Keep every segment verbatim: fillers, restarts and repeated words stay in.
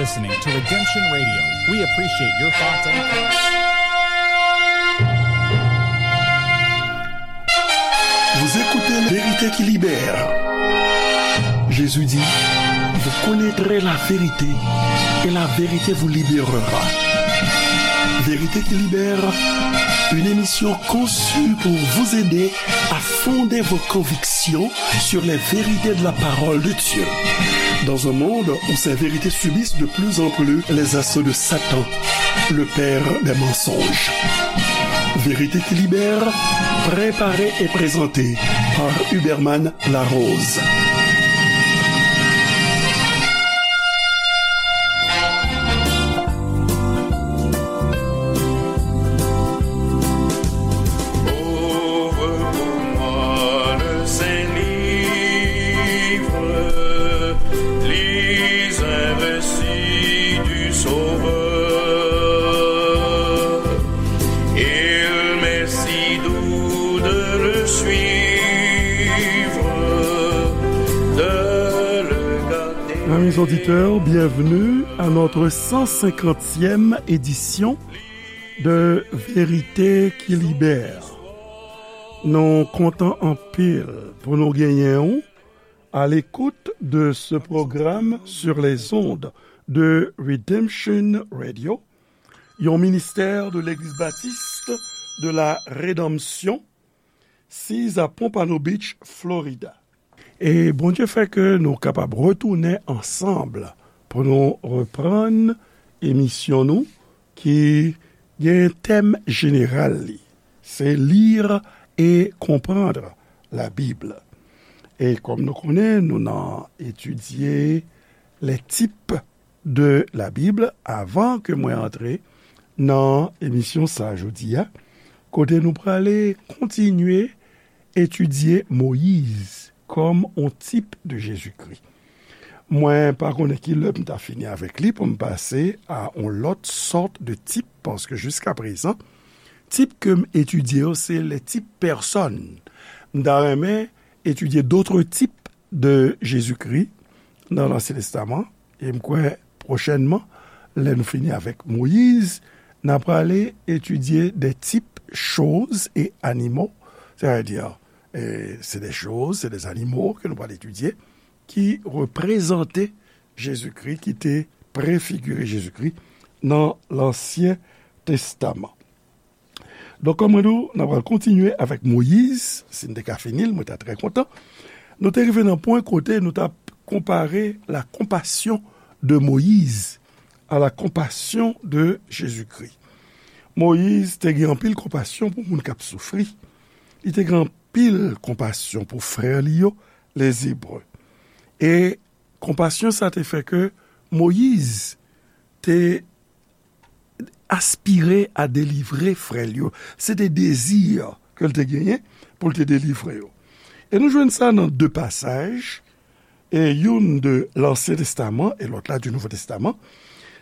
Listening to Redemption Radio. We appreciate your thoughts and comments. Vous écoutez La vérité qui libère. Jésus dit, vous connaîtrez la vérité et la vérité vous libérera. Vérité qui libère, une émission conçue pour vous aider à fonder vos convictions sur les vérités de la parole de Dieu. Dans un monde où ces vérités subissent de plus en plus les assauts de Satan, le père des mensonges. Vérité qui libère, préparée et présentée par Huberman Larose. Ouvre pour moi le Saint-Livre, lis un récit du Sauveur. Il m'est si doux de le suivre, de le garder. Amis auditeurs, bienvenue à notre cent cinquantième édition de Vérité qui Libère. Nou kontan anpil pou nou genyen w à l'écoute de ce programme sur les ondes de Redemption Radio, yon ministè de Legliz Batis de la Redanmsyon, siz a Pompano Beach, Florida. E Bondye fè ke nou kapab retounen ansanm pou nou reprann emisyon nou ki gen tèm jeneral li. Se Lire et comprendre la Bible. E kòm nou konnen, nou nan etidye les types de la Bible avan ke mwen antre nan emisyon sa a jodi a, kote nou prale kontinye etidye Moyiz kòm on tip de Jezikri. Mwen pa konnen ki lè m ta fini avèk li pou m pase a on lòt sòt de tip, paske jiska prezan, tip ke m etidye yo, se les types personnes. M ta renmen etidye d'autres types de Jezikri nan Lansyen Testaman, e m kwè pwochènman, lè nou fini avèk Moyiz, n a prale etidye des types choses et animaux, c'est-à-dire, e, se de choz, se de zanimo ke nou pral etidye, ki reprezante Jezikri, ki te prefigire Jezikri nan Lansyen Testaman. Donk, kòm mwen di w, n a pral kontinye avèk Moyiz. Si n te ka fini l, mwen ta trè kontan. Nou te rive nan pwen kote nou t ap konpare la compassion de Moïse à la compassion de Jésus-Christ. Moyiz te gen anpil konpasyon pou moun k ap soufri. Li te gen anpil konpasyon pou frè li yo, les Hébreux. E konpasyon sa te fè ke Moyiz te aspire a delivre frè l yo. Se te dezi ke l te genyen pou l te delivre yo. E nou jwenn sa nan de pasaj, e youn de Lansyen Testaman e lòt la di Nouvo Testaman.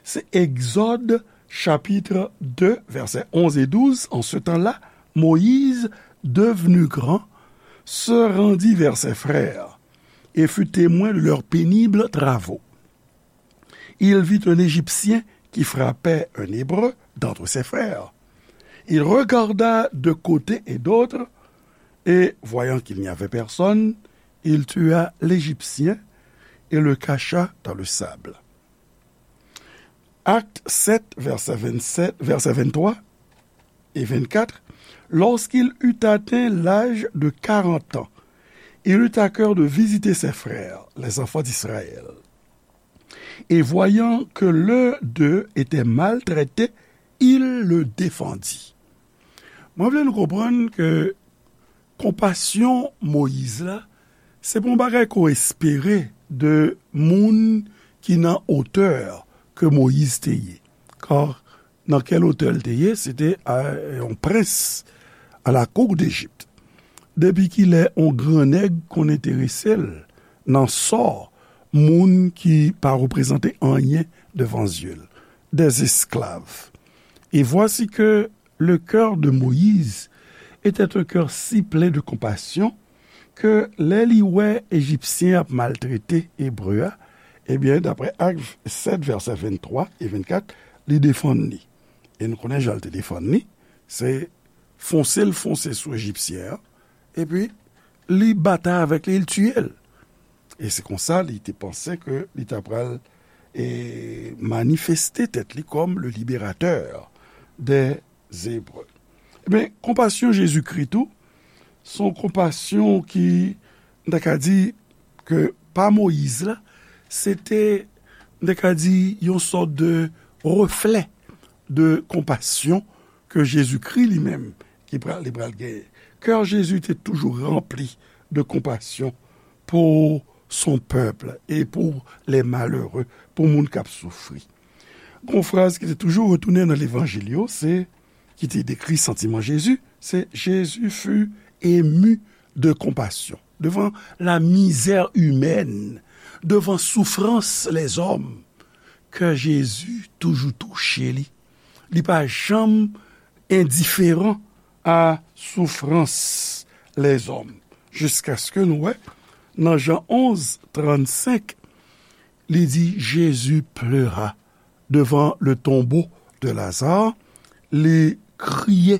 Se Egzòd, chapitre deux, versets onze et douze. En ce temps-là, Moïse, devenu grand, se rendit vers ses frères et fut témoin de leurs pénibles travaux. Il vit un Égyptien qui frappait un Hébreu d'entre ses frères. Il regarda de côté et d'autre, et, voyant qu'il n'y avait personne, il tua l'Égyptien et le cacha dans le sable. Acte sept, verset vingt-sept, verset vingt-trois et vingt-quatre. Lorsqu'il eut atteint l'âge de quarante ans, il eut à cœur de visiter ses frères, les enfants d'Israël. Et voyant que l'un d'eux était maltraité, il le défendit. Mwen vle nou konprann ke konpasyon Moyiz la, se pa yon bagay ke w espere de moun ki nan otè ke Moyiz te ye. Kar nan kèl otè l te ye, se te, a, yon prens à la cour d'Égypte. Depi kilè yon gran nèg konn enterese l nan sò moun ki pa reprezante anyen devan zye l, des esclaves. Et voici que le cœur de Moïse était un cœur si plein de compassion ke lè li wè Ejipsyen ap maltrete Ebre a, Ebyen, daprè Ak sèt, vèsè venntwa e vennkat, li defann li. E nou konnen jan l te defann li, se fonse l fonse sou Ejipsyen an, epi li batay avèk li, li tiye l. E se konsa li te panse ke li ta pral, e, manifeste tèt li kòm le libérateur des Hébreux. Ebyen, konpasyon Jezikri tou, se yon konpasyon ki, m ta ka di, ke pa Moyiz la, se te, m ta ka di, yon sòt de reflè de konpasyon ke Jezikri li menm ki pral, li pral genyen. Kè Jezi te toujou ranpli de konpasyon pour son peuple et pour les malheureux, pou moun k ap soufri. Gon fraz ki te toujou retounen nan levanjil yo, se, ki te dekri santiman Jezi, se: Jésus fut ému de compassion. Devan la misère humaine, devan soufrans lèzòm, kè Jezi toujou touche li. Li pa janm endiferan a soufrans lèzòm. Jiskaske nou wè, nan Jan onz, trannsenk, li di: Jésus pleura devant le tombeau de Lazare, li kriye.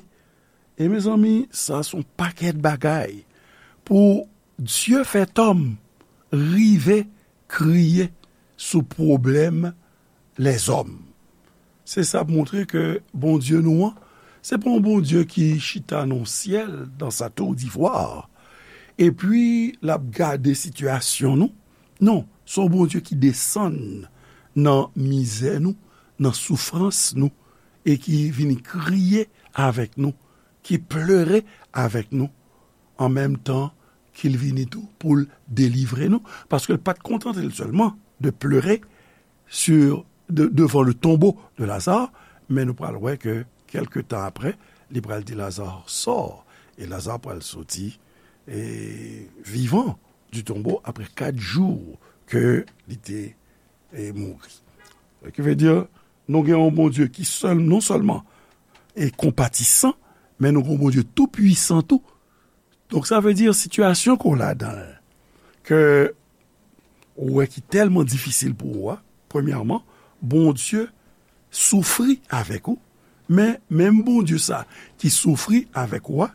E mezanmi, sa se yon pakèt bagay. Pou Dye fè tòm rive kriye sou pwoblèm lèzòm. Se sa ap montre ke Bondye nou an, se pa yon Bondye ki chita nan syèl, dans sa tour d'ivoire, epi l ap gade sitiyasyon nou. Non, se yon Bondye ki desann nan mizè nou, nan soufrans nou, e ki vini kriye avèk nou, ki plere avèk nou, an menm tan ke l vini tou pou l delivre nou, paske l pa t kontante l sèlman de plere sur, de, devant le tombeau de Lazare, men nou pral wè ke kèlke tan apre, li pral di: Lazare, sors, e Lazare pral soti, e, vivan du tombeau apre kat jou ke li te, e, mouri. Ki vle di, nou gen yon Bondye ki sèl, non sèlman e konpatisan, men nou gen yon Bondye tou pwisan tou. Donk, sa vle di, sitiyasyon ke w ladan l, ke ou wè ki tèlman difisil pou ou a, premyèman, Bondye soufri avèk ou, men menm Bondye sa ki soufri avèk ou a,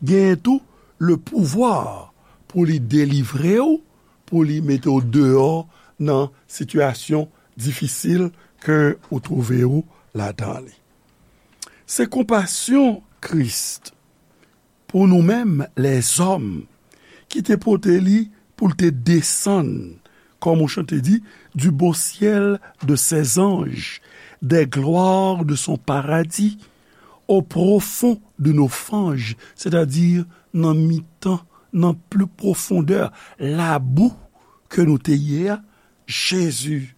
genyen tou le pouvwa pou li delivre w, pou li mete w deyò nan sitiyasyon difisil ke ou twouve w ladan li. Se konpasyon Kris pou nou menm lèzòm ki te pote li pou l te desann, comme on chante dit, du beau ciel de ses anges, des gloires de son paradis, au profond de nos fanges, c'est-à-dire nan mitan, nan pli pwofondè, labou ke nou te ye a, Jezi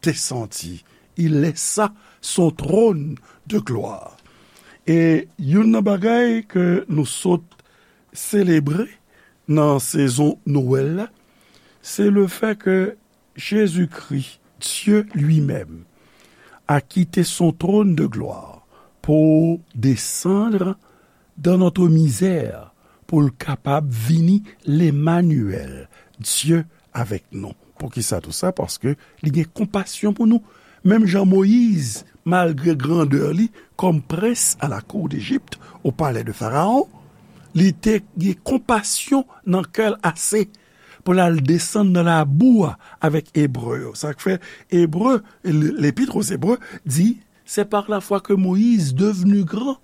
desanti. Il laissa son trône de gloire. E youn nan bagay ke nou sot selebre nan sezon Nwèl la, se le fè ke Jezikri, Dieu lui-même, a quitté son trône de gloire pour descendre dans notre misère, pou l kapab vini Lemanyèl, Dye avèk nou. Poukisa tou sa? Paske li gen konpasyon pou nou. Menm jan Moyiz, malgre grandè li kòm prens à la cour d'Égypte, au palais de Pharaon, li te gen konpasyon nan kè l ase pou l al desann nan labou a avèk Ebre yo. Sa k fè Ebre, L'Épître aux Hébreux di, c'est par la foi que Moïse, devenu grand,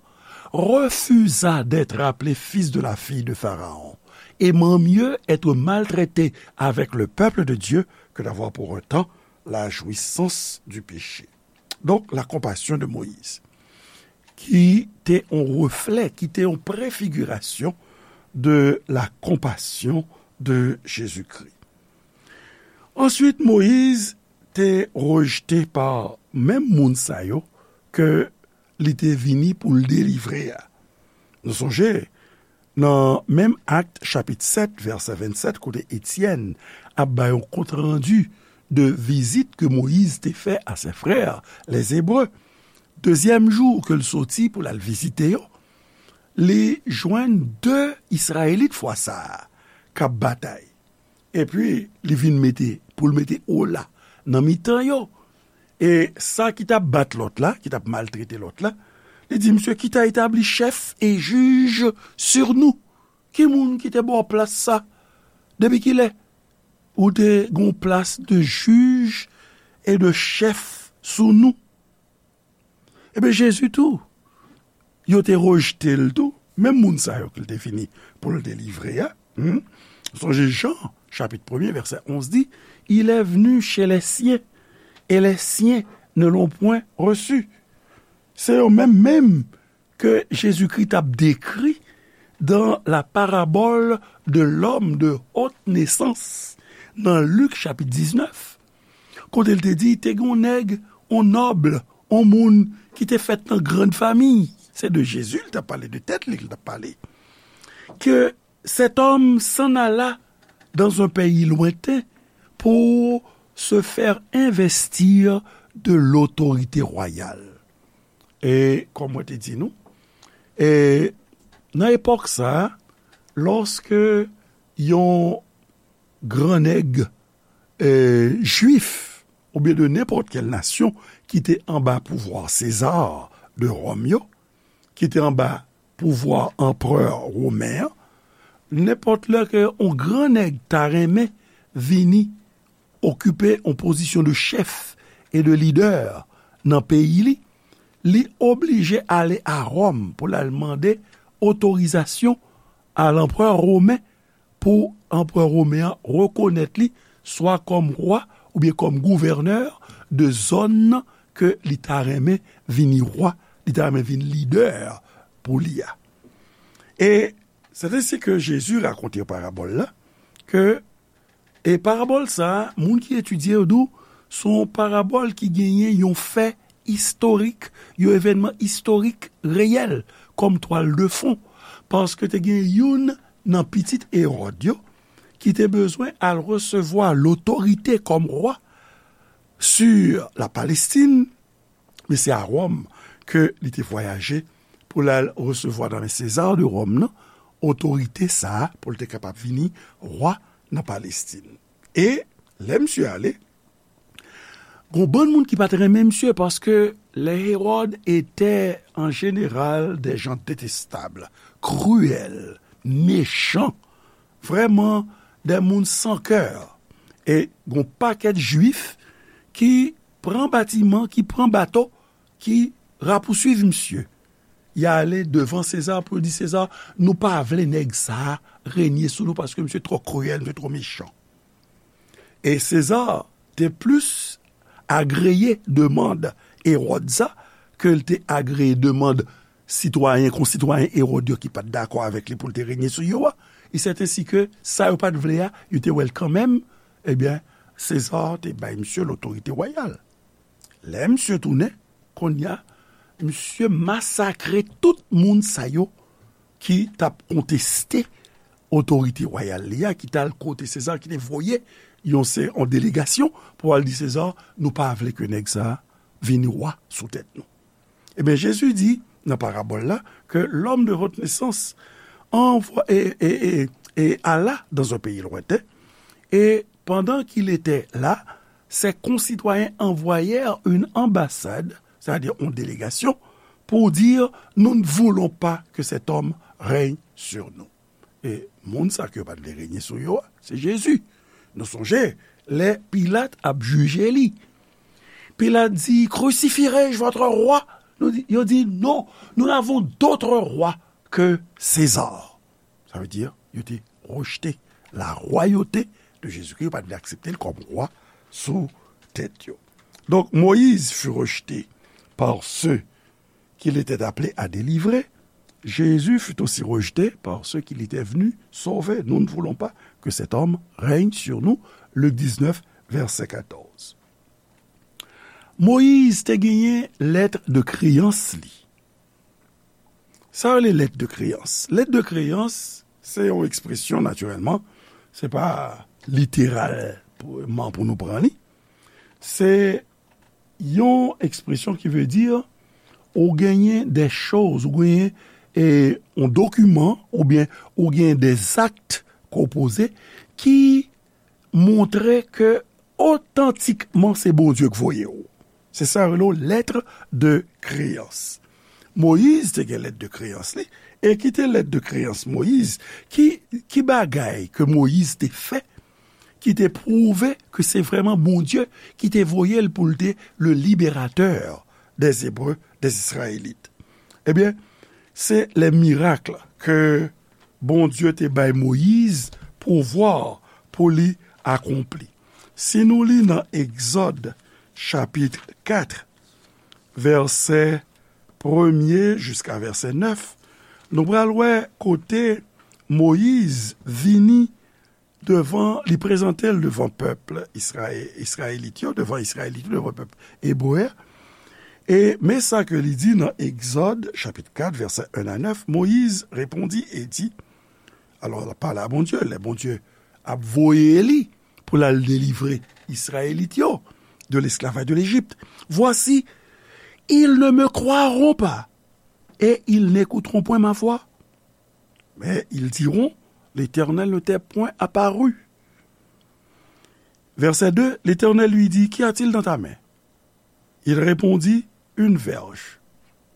refusa d'être appelé fils de la fille de Pharaon, aimant mieux être maltraité avec le peuple de Dieu que d'avoir pour un temps la jouissance du péché. Donc, la compassion de Moïse, ki te yon reflè, ki te yon prefigirasyon de la compassion de Jésus-Christ. Answit, Moyiz te rejte pa menm moun sa yo ke li te vini pou l delivre a. Nou sonje, nan menm Ak, chapit sèt, vèsè vennsèt, kote Etyèn ap bay yon kontrandi de vizit ke Moyiz te fè a ses frères, les Hébreux, dezyèm jou ke l soti pou l al vizite yo, li jwenn de Izrayelit fwa sa a k ap batay. Epi, li vin mete, pou l mete ola nan mitan yo. E sa ki t ap bat lòt la, ki t ap maltrete lòt la, li di, "Misye, ki ta etabli chèf e jij sur nou? Ki moun ki te ba w plas sa? Depi kilè ou te gon plas de jij e de chèf sou nou?" Ebyen, Jezi tou, yo te rejte l tou. Menm moun sa yo ke l te vini pou l delivre a. Hmm? Sonje Jan, chapit premye, vèsè onz di, Il est venu chez les siens, et les siens ne l'ont point reçu. Se yo menm menm ke Jezikri t ap dekri dans la parabole de l'homme de haute naissance, nan Lik chapit diznèf, kote l te di, te gen yon nèg, yon nòb, yon moun ki te fèt nan grann fami. Se de Jezi l t ap pale, de tèt li l t ap pale. Que cet homme s'en alla dans un pays lointain pour se faire investir de l'autorité royale. E, kòm mwen te di nou, e, nan epòk sa a, lòske yon gran nèg, e, jwif, oubyen de nenpòt kèl nasyon ki te anba pouvwa Seza de Wòm yo, ki te anba pouvwa anperè women an, nenpòt lè ke yon gran nèg ta renmen vini okipe yon pozisyon de chèf e de lidè nan peyi li, li oblije ale a Wòm pou l al mande otorizasyon a lanperè women, pou anperè women an rekonèt li swa kòm wa oubyen kòm gouvènè de zòn nan ke li ta renmen vini wa, li ta renmen vin lidè pou li a. E se ensi ke Jezi rakonte parabòl la, ke, e parabòl sa a, moun ki etidye yo di w, se yon parabòl ki genyen yon fè istorik, yon evènman istorik reyèl kòm twal de fon, paske te gen youn nan pitit Ewòd yo ki te bezwen al resevwa lotorite kòm wa sur la Palestine, men se a Wòm ke li te vwayaje pou l al resevwa nan men Seza de Wòm nan otorite sa a pou l te kapab vini wa nan Palestine. E lè misye ale, gon bann moun ki pa t renmen misye, paske les Hérode étaient en général des gens détestables, cruels, méchants, vrèman de moun san kè. E gon pakèt jwif ki pran batiman, ki pran bato, ki rapousuiv misye. Y ale devan Seza pou yo di, Seza, nou pa vle nèg sa a renye sou nou paske misye twò kriyèl, misye twò mechan. E Seza te plis agreye demann Ewòd sa ke l te agreye demann sitwayen, konsitwayen Ewòd yo ki pa t dakò avèk li pou l te renye sou yo a. E sèten si ke sa yo pa t vle a, yo te wè l kanmenm, ebyen, Seza te bay misye lotorite wayal. Lè misye tounen, kounye a, misye masakre tout moun sa yo ki t ap konteste otorite wayal li a, ki t al kote Seza, ki te voye yon se, yon delegasyon pou al di Seza, nou pa vle ke nèg sa a vin wa sou tèt nou. Ebyen, Jezi di nan parabòl la ke l'homme de haute naissance envoie, e, e, e, e alla dans un pays lointain, et pendant qu'il était là, ses concitoyens envoyèrent une ambassade, c'est-à-dire une délégation, pour dire, nous ne voulons pas que cet homme règne sur nous. E moun sa ke yo pa t vle renye sou yo a, se Jezi. Nou sonje, lè Pilat ap jije li, Pilat di, Crucifierai-je votre roi? Nou di, yo di, Non, nous n'avons d'autre roi que César. Sa vle di, yo te rejte la royauté de Jésus-Christ, yo pa t vle aksepte l kòm wa sou tèt yo. Donc, Moïse fut rejeté par ceux qu'il était appelé à délivrer, Jésus fut aussi rejeté par ceux qu'il était venu sauver. Nous ne voulons pas que cet homme règne sur nous. Luc dix-neuf, verset quatorze. Moyiz te genyen lèt de kreyans li. Sa yo rele lèt de kreyans. Lèt de kreyans, se yon ekspresyon, natirèlman, se pa literalman pou nou pran li. Se yon ekspresyon ki vle di, ou genyen de choz, ou genyen, e, yon dokiman, oubyen ou genyen de zakt ke w poze ki montre ke, otantikman se Bondye k voye w. Se sa yo rele w lettre de créance. Moyiz te gen lèt de kreyans li, e ki te lèt de kreyans Moyiz? Ki, ki bagay ke Moyiz te fè ki te pwouve ke se vrèman Bondye ki te voye l pou l te le libérateur des Hébreux, des Israélites? Ebyen, se les miracles ke Bondye te bay Moyiz pouvwa pou li akonpli. Si nou li nan Egzòd chapit kat, vèsè premye jiska vèsè nèf, nou pral wè kote Moyiz vini devan, li prezante l devan pèp Izraye-, Izrayelit yo, devan Izrayelit yo, devan pèp ebre a. E men sa ke li di nan Egzòd, chapit kat, vèsè en a nèf, Moyiz repondi e di, alò, l ap pale a Bondye, lè Bondye ap voye li pou l al delivre Izrayelit yo de l'esclavage de l'Égypte. Voici, ils ne me croiront pas et ils n'écouteront point ma voix. Mais ils diront, l'Éternel ne t'est point apparu. Verset deux, l'Éternel lui dit, qu'y a-t-il dans ta main? Il répondit, une verge,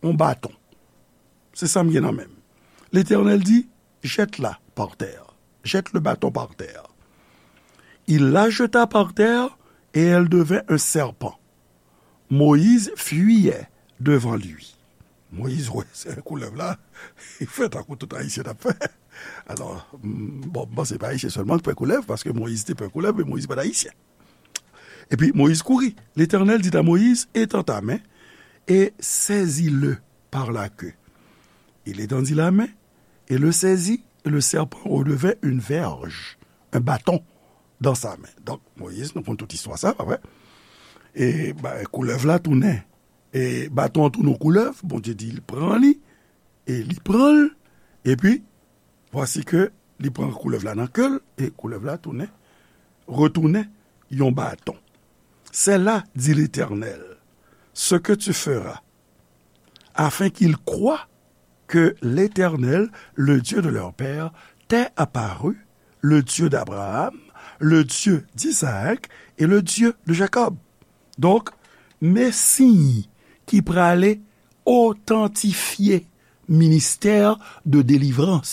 un bâton. Se sa m gen nan men m. L'Éternel dit, jette-la par terre. Jette le bâton par terre. Il la jeta par terre et elle devint un serpent. Moïse fuyait devant lui. Moyiz wè se koulèv la, li fè tankou tout Ayisyen t ap fè. Alò, m, bon, m panse pa Ayisyen sèlman k pè koulèv, paske Moyiz te pè koulèv, men Moyiz pa t Ayisyen. Epi Moyiz kouri. L'Éternel dit à Moïse, étends ta main et saisis-le par la queue. Il étendit la main et le saisit, et le serpent redevint une verge, un bâton dans sa main. Donk, Moyiz, nou konn tout istwa sa, pa vre? E, ba, koulèv la tounen, e baton an tounen yon koulèv, Bondye di l pran li, e li pran l, epi, vwasi ke li pran koulèv la nan ke l, e koulèv la tounen, retounen yon baton. C'est là, dit l'Éternel, ce que tu feras, afin qu'ils croient que l'Éternel, le Dieu de leur père, t'est apparu, le Dieu d'Abraham, le Dieu d'Isaac et le Dieu de Jacob. Donk, men siy ki prale otantifye ministè de delivrans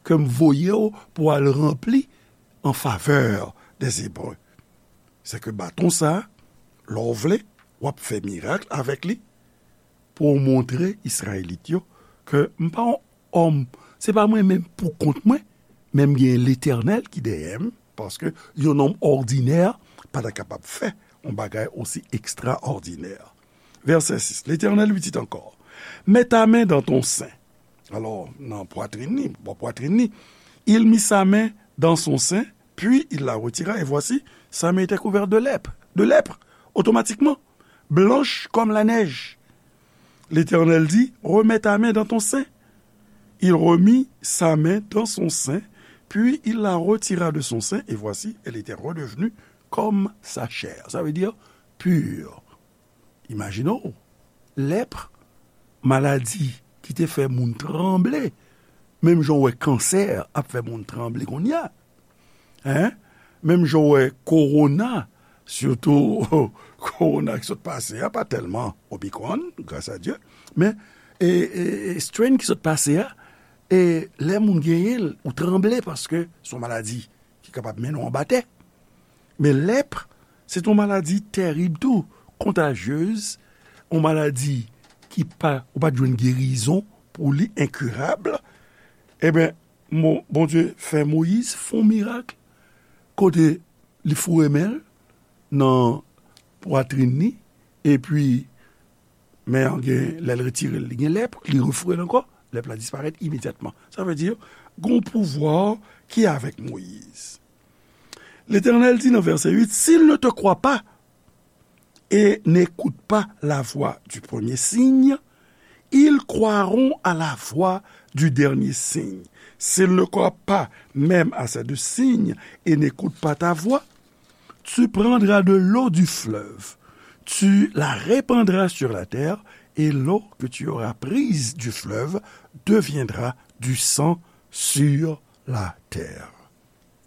ke m voye w pou al ranpli an favè dè Ebre. Se ke baton sa, lè w vle, w ap fè mirak avèk li pou w montre Izrayelit yo ke m pa yon òm, se pa mwen menm pou kont mwen, men m gen Letènèl ki dèyè m, paske yon nonm òdinè pa ta kapab fè yon bagay osi ekstraòdinè. Verset six, L'Éternel lui dit encore, mets ta main dans ton sein. Alò, nan pwatrin li, bò pwatrin li, il mit sa main dans son sein, puis il la retira, et voici, sa main était couverte de lèpre, de lèpre, automatiquement, blanche comme la neige. L'Éternel dit, remets ta main dans ton sein. Il remit sa main dans son sein, puis il la retira de son sein, et voici, elle était redevenue comme sa chair. Ça veut dire pure. Imajine w, lèpre, maladi ki te fè moun tranble, menm jan w wè kansè ap fè moun tranble kounye a. Hein? Menm jan w wè kowona, sitou kowona ki sot pase a, pa tèlman Omicron, gras a Dye, men, e, e, e strain ki sot pase a, e lè moun genyen l, ou tranble paske se yon maladi ki kapab mennen w anba tè. Men lèpre, se t yon maladi tèrib tou, kontajyez, yon maladi ki pa, ou pa t jwenn gerizon pou li, enkirab. Ebyen, Mo-, Bondye fè Moyiz fè yon mirak kote li foure men l nan pwatrin li, epi men an gen, lè l retire l, li gen lèpre, li refoure l ankò, lèpre la disparèt imedyatman. Sa vle di, gen yon pouvwa ki avèk Moyiz. L'Éternel dit nan vèsè uit, s'ils ne te croient pas et n'écoutent pas la voix du premier signe, ils croiront à la voix du dernier signe. S'ils ne croient pas même à ces deux signes et n'écoutent pas ta voix, tu prendras de l'eau du fleuve, tu la répandras sur la terre, et l'eau que tu auras prise du fleuve deviendra du sang sur la terre.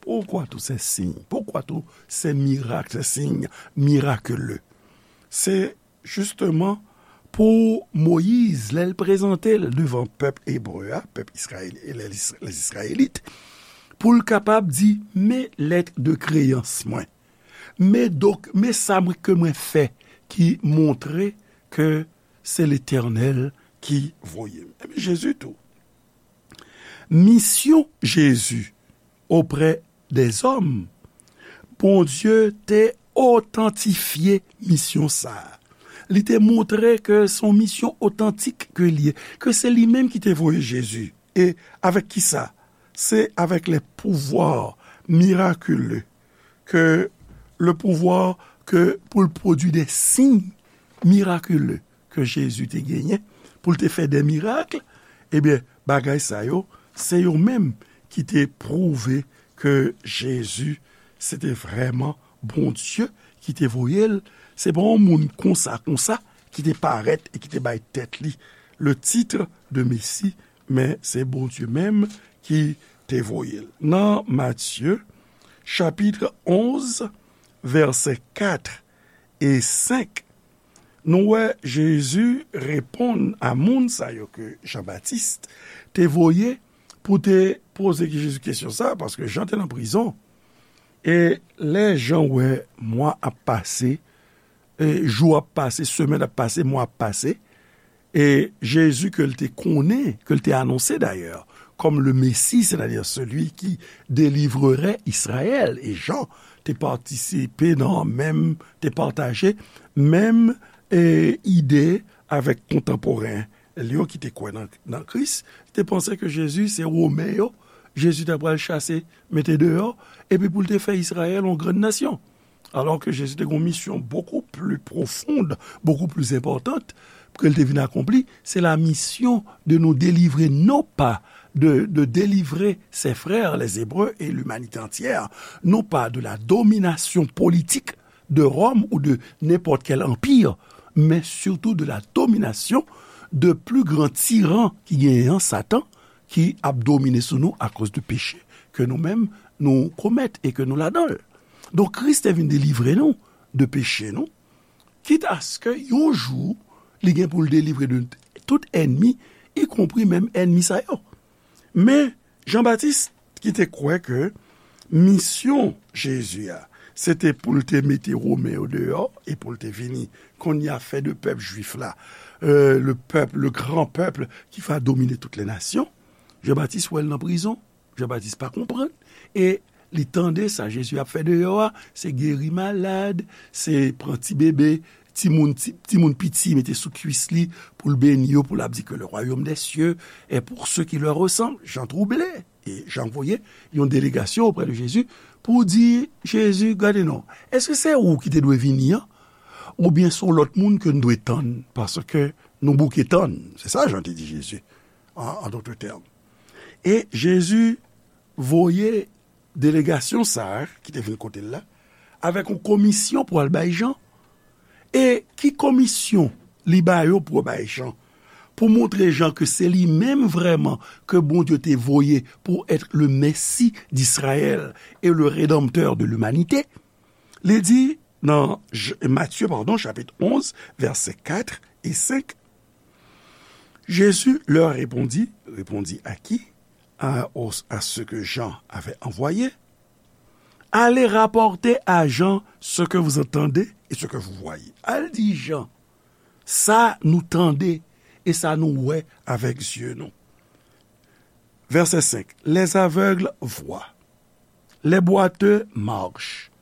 Pourquoi tous ces signes? Pourquoi tous ces miracles, ces signes miraculeux? Se jisteman pou Moyiz, lè l prezante l devan pèp ebre a, pèp Izrayèl, les Israélites, pou l kapab di, men lèt de kreyans mwen. Men donk, men sa mwen, ke mwen fè ki montre ke se Letènèl ki voye m. Ebyen, Jezi tou. Misyon Jezi oprè dèzòm, Bondye te otantifye misyon sa a. Li te montre ke se yon misyon otantik ke li ye, ke se li menm ki te voye Jezi. E avèk ki sa? Se avèk les pouvoirs miraculeux, ke le pouvoir ke pou l pwodui de siy mirakile ke Jezi te genyen, pou l te fè de mirak, ebyen, bagay sa yo, se yo menm ki te pwouve ke Jezi, se te vrèman Bondye ki te voye l. Se pa yon moun konsa, konsa, ki te parèt e ki te bay tèt li le titre de Mesi, men se Bondye menm ki te voye l. Nan Matye, chapit onz, vèsè kat e senk, nou wè Jezi reponn a moun sa yo ke Jan Batis te voye pou te poze Jezi kesyon sa, paske Jan te nan prizon. E lè Jan wè mwa ap pase, e jou ap pase, semèn ap pase, mwa ap pase, e Jezi ke l te konnen, ke l te anonse dayè, kòm le Messie, c'est-à-dire celui qui délivrerait Israël. E Jan te patisipe nan menm, te pataje menm, e, ide avèk kontanporen li yo ki te kwè nan, nan Kris, te panse ke Jezi se Women yo, Jezi ta pral chase, mete deyò, epi pou l te fè Izrayèl yon grann nasyon. Alò ke Jezi te gen yon misyon bokou pli pwofond, bokou pli enpòtan ke l te vin akonpli, se la misyon de nous délivrer, non pas de, de délivrer ses frères les Hébreux et l'humanité entière, non pas de la domination politique de Rome ou de n'importe quel empire, mais surtout de la domination de plus grand tyran ki genyen an, Satan, ki ap domine sou nou akoz de peche ke nou menm nou komèt e ke nou ladan l. Donk, Kris te vin delivre nou de peche nou, kit aske yon jou, li gen pou l delivre de tout ènmi, ikonpri menm ènmi sa yo. Men, Jan Batis, ki te kwè ke misyon Jezi a, se te pou l te mete Women yo deyò e pou l te vini, kounye a fè de pèp jwif la, euh, le peuple, le grand peuple qui va dominer toutes les nations. Jan Batis wè l nan prizon. Jan Batis pa konprann. E li tande sa Jezi ap fè deyò a, se geri malad, se pran ti bebe, timoun, ti, timoun piti, mete sou kwis li pou l beni yo, pou l ap di que le royaume des cieux est pour ceux qui leur ressemblent. Jan twouble. E Jan voye yon delegasyon oprè de Jezi pou di, Jezi, gade non, èske se ou ki te dwe vini an? Oubyen se yon lòt moun ke n dwe tann? Paske nou bouke tann. Se sa Jan te di Jezi, an, an dòt tèm. E Jezi voye delegasyon sa a ki te vin kote l la, avèk yon komisyon pou al bay Jan. E ki komisyon li ba yo pou bay Jan? Pou montre Jan ke se li menm vrèman ke Bondye te voye pour être le Messie d'Israël et le Rédempteur de l'humanité. Li di nan J-, Matye, padon, chapit onz, vèsè kat e senk, Jésus leur répondit, répondit à qui? À, au, à ceux que Jean avait envoyés. Allez rapporter à Jean ce que vous entendez et ce que vous voyez. Al di Jan sa nou tande e sa nou wè avèk zye nou. Vèsè senk, les aveugles voient, les boiteux marchent,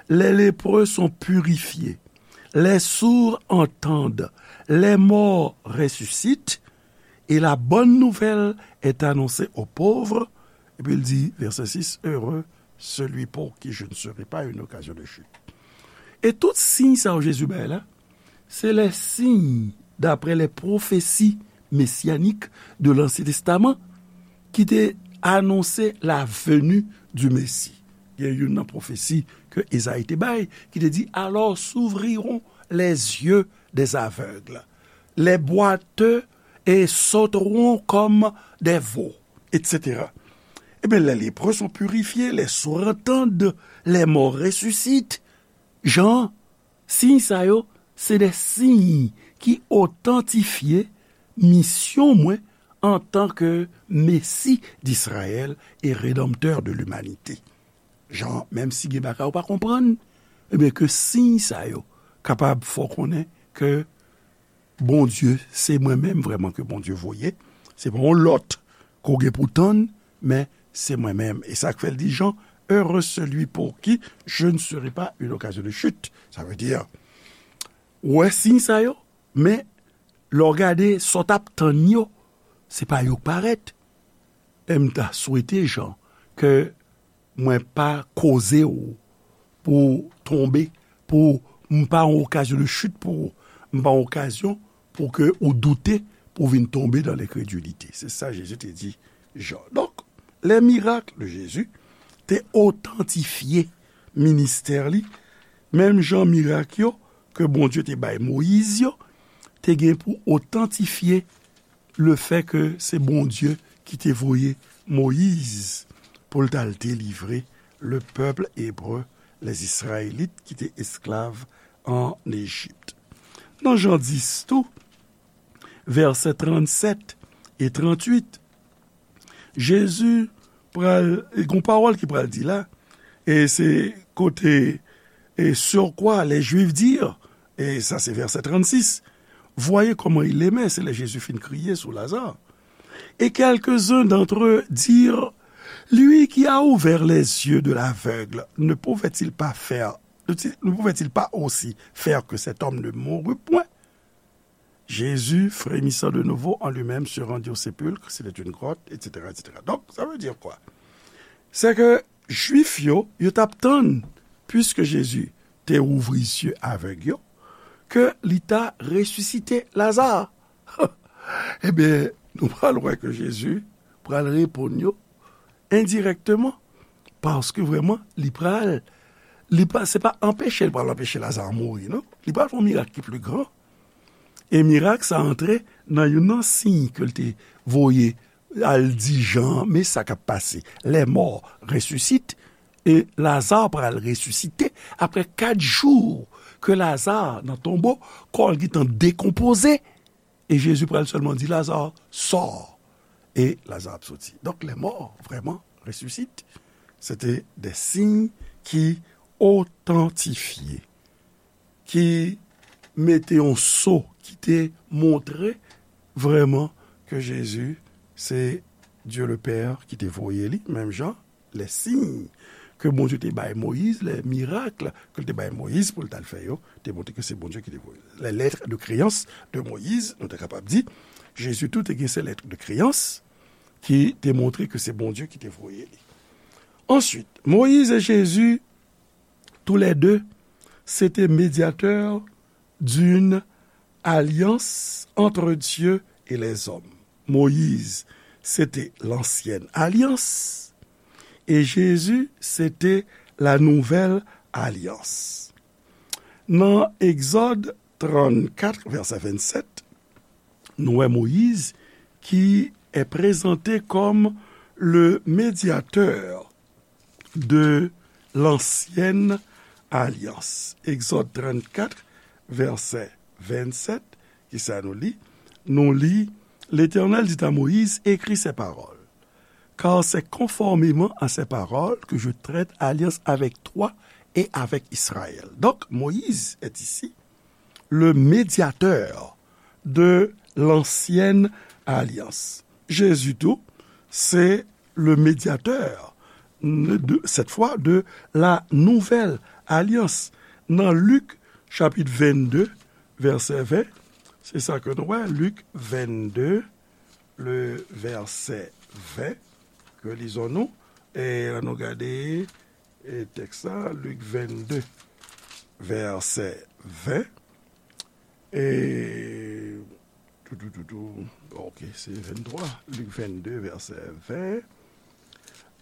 les lépreux sont purifiés, les sourds entendent, les morts ressuscitent, et la bonne nouvelle est annoncée aux pauvres. Epi l di, vèsè sis, heureux celui pour qui je ne serai pas une occasion de chute. E tout siy sa yo Jezi bay la, se les signes d'après les prophéties messianiques de l'Ancien Testament ki te anonse la venue du Messie. Gen youn nan pwofesi ke Ezayi te bay, ki te di, alors s'ouvriront les yeux des aveugles, les boiteux et sauteront comme des veaux, et cetera. Ebyen, les lépreux sont purifiés, les sourds entendent, les morts ressuscitent. Jan, siy sa yo, se de siy ki otantifye misyon mwen antanke Mesi d'Israël et Rédempteur de l'humanité. Jan, menm si gen bagay ou pa konprann, ebyen, ke siy sa yo kapab fè w konnen ke Bondye, se mwen menm vrèman ke Bondye voye. Se pa yon lòt ke w gen pou tann, men se mwen menm. E sa k fè l di Jan, heureux celui pour qui je ne serai pas une occasion de chute. Sa vle di, ou wè siy sa yo, men lè w gade sa w t ap tann yo, se pa yo k parèt. E m ta swete, Jan, ke mwen pa koze w pou w tonbe, pou m pa yon okazyon de chit pou ou, m pa yon okazyon pou ke ou doute, pou w vin tonbe dans l'incrédulité. Se sa Jezi te di Jan. Donk, les miracles de Jésus te otantifye ministè li, menm jan mirak yo ke Bondye te bay Moyiz yo, te gen pou otantifye le fait que se Bondye ki te voye Moyiz pou l t al delivre le peuple hébreu, les Israélites ki te esklav an Ejip. Nan Jan dis tou, vèsè trannsèt e trantuit, Jezi pral, e gon pawòl ki pral di la, e se kote, et sur quoi les Juifs dirent, e sa se vèsè trannsis, voyez comment il aimait, se lè Jezi fin kriye sou Lazare. Et quelques-uns d'entre eux dirent, lui qui a ouvert les yeux de l'aveugle, ne pouvait-il pas faire, ne pouvait-il pas aussi faire que cet homme ne mourût point? Jésus, frémissant de nouveau en lui-même, se rendit au sépulcre, c'était une grotte, et cetera, et cetera. Donc, ça veut dire quoi? C'est que Jwif yo, yo t ap tann, puiske Jezi te ouvri zye avèg yo, ke li ta resisite Laza. Ebyen, nou pral wè ke Jezi pral reponn yo endirèkteman, paske vrèman, li pral, li pa, se pa anpeche l pral anpeche Laza mouri, non. Li pral fè yon mirak ki pli gran. E mirak sa antre nan youn nan siy ke l te voye al di Jan, men sa k ap pase. Les morts ressuscitent, e Laza pral resisite apre kat jou ke Laza nan tonbo, kò l gentan dekonpoze, e Jezi pral sèlman di, Laza, sò! E Laza ap soti. Donk, les morts vraiment ressuscitent. Se te de siy ki otantifye, ki mete yon so, ki te montre vrèman ke Jezi se Dye le Pè ki te voye li, menm jan, les signes ke Bondye te bay Moyiz, les miracles ke l te bay Moyiz pou l t al fè yo, te montre ke se Bondye ki te voye. Les lettres de créance de Moïse, nou te kapab di, Jezi tou te gen se lettres de créance ki te montre ke se Bondye ki te voye li. Ensuite, Moïse et Jésus, tous les deux, c'était médiateur d'une alliance entre Dieu et les hommes. Moïse, c'était l'ancienne alliance, et Jésus, c'était la nouvelle alliance. Nan Egzòd trannkat, vèsè vennsèt, nou wè Moyiz ki est présenté comme le médiateur de l'ancienne alliance. Egzòd trannkat, vèsè vennsèt, ki sa nou li? Nou li, L'Éternel dit à Moïse, écris ces paroles, car c'est conformément à ces paroles que je traite alliance avec toi et avec Israël. Donc, Moïse est ici le médiateur de l'ancienne alliance. Jésus tou, se le médiateur, de, cette fois, de la nouvelle alliance. Nan Lik, chapit vennde, vèsè ven, se sa ke nou wè, Lik vennde, le vèsè ven, ke lizon nou, e la nou gade, e tèks la, Lik vennde, vèsè ven, e tou, tou, tou, tou, ok, se venntwa, Lik vennde, vèsè ven.